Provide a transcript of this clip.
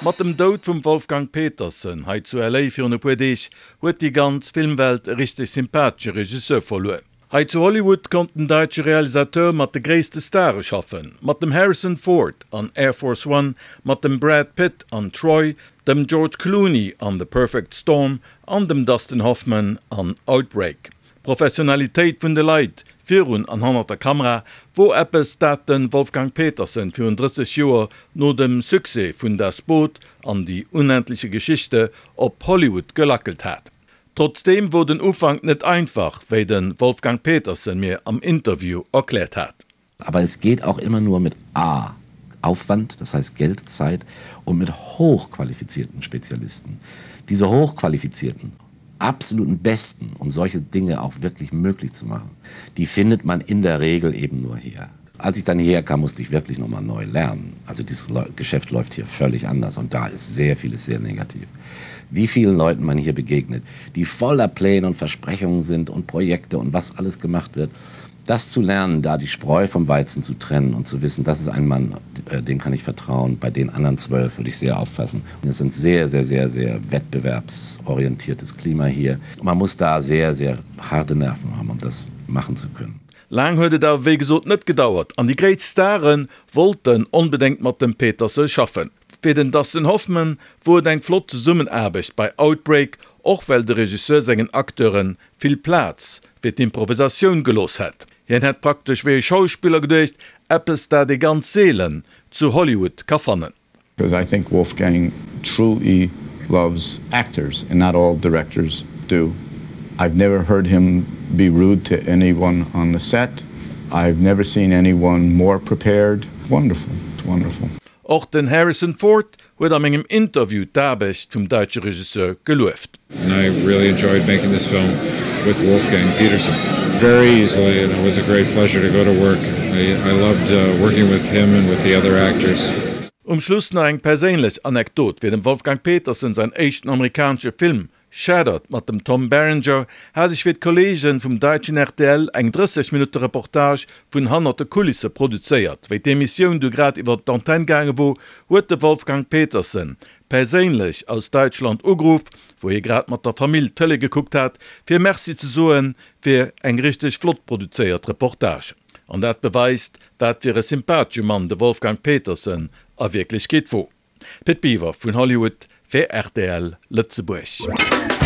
Mat dem Doud vum Wolfgang Petersen hei zu LA virun e puer Deeg huet déi ganz Filmwelt e richteg sympathesche Regisseur verluer. Hei zu Hollywood konnt den daitsche Realisateur mat de gréisste Stare schaffen, mat dem Harrison Ford an Air Force One, mat dem Brad Pitt an Troy, dem George Clooney an The Perfect Storm an dem Dustin Hoffman an Outbreak. D'Professionalitéit vun de Leit virun an hannert der Kamera wor eppes, dat de Wolfgang Petersen virun 30 Joer no dem Succès vun Das Boot an Die unendliche Geschichte op Hollywood gelackelt hat. Trotzdeem wor den Ufank net einfach, wéi de Wolfgang Petersen mir am Interview erkläert hat. Aber es geht auch immer nur mit A Aufwand, das heißt Geld, Zeit und mit hochqualifizierten Spezialisten. Diese hochqualifizierten, absoluten Besten, um solche Dinge auch wirklich möglich zu machen, die findet man in der Regel eben nur hier. Als ich dann hierher kam, musste ich wirklich noch mal neu lernen. Also dieses Geschäft läuft hier völlig anders und da ist sehr vieles sehr negativ. Wie vielen Leuten man hier begegnet, die voller Pläne und Versprechungen sind und Projekte und was alles gemacht wird das zu lernen, da die Spreu vom Weizen zu trennen und zu wissen, das ist ein Mann, äh, dem kann ich vertrauen, bei den anderen zwölf würde ich sehr aufpassen. Und es ist ein sehr, sehr, sehr, sehr wettbewerbsorientiertes Klima hier. Man muss da sehr, sehr harte Nerven haben, um das machen zu können. Laang huet et awer wéi gesot net gedauert an déi gréisst Stare wollten onbedéngt mat dem Petersen schaffen. Fir den Dustin Hoffman wor et eng flott Zesummenaarbecht bei Outbreak, och well de Regisseur sengen Acteure vill Plaz fir d'Improvisatioun gelooss hätt. Hien hätt praktesch wéi e Schauspiller geduecht, eppes dat ee ganz seelen zu Hollywood ka fannen. Because I think Wolfgang truly loves actors and not all directors do. I've never heard him be rude to anyone on the set. I've never seen anyone more prepared. Wonderful, wonderful. Och den Harrison Ford huet a mengem Interview d'Aarbecht vum däitsche Regisseur gelueft. And I really enjoyed making this film with Wolfgang Petersen. Very easily and it was a great pleasure to go to work. I, I loved uh, working with him and with the other actors. Um Schluss nach eng perséinlech Anekdot, Fir dem Wolfgang Petersen säin éischten amerikanesche Film Shattered mat dem Tom Berenger hat ech fir d'Kollegen vum daitschen rtl eng 30 Minutte Reportage vun hannert de Kulisse produzéiert. Wéi d'Emissioun du grad iwwer d'Antenne gaange wor, huet de Wolfgang Petersen perséinlech aus Daitschland ugeruff, wou hie grad mat der Famill Tëlee gekuckt hat, fir Merci ze soen fir eng richteg flott produzéiert Reportage. An dat beweist, wat fir e sympathesche Mann de Wolfgang Petersen a Wierklechkeet wor. Pit Biwer vun Hollywood fir rtl Lëtzebuerg.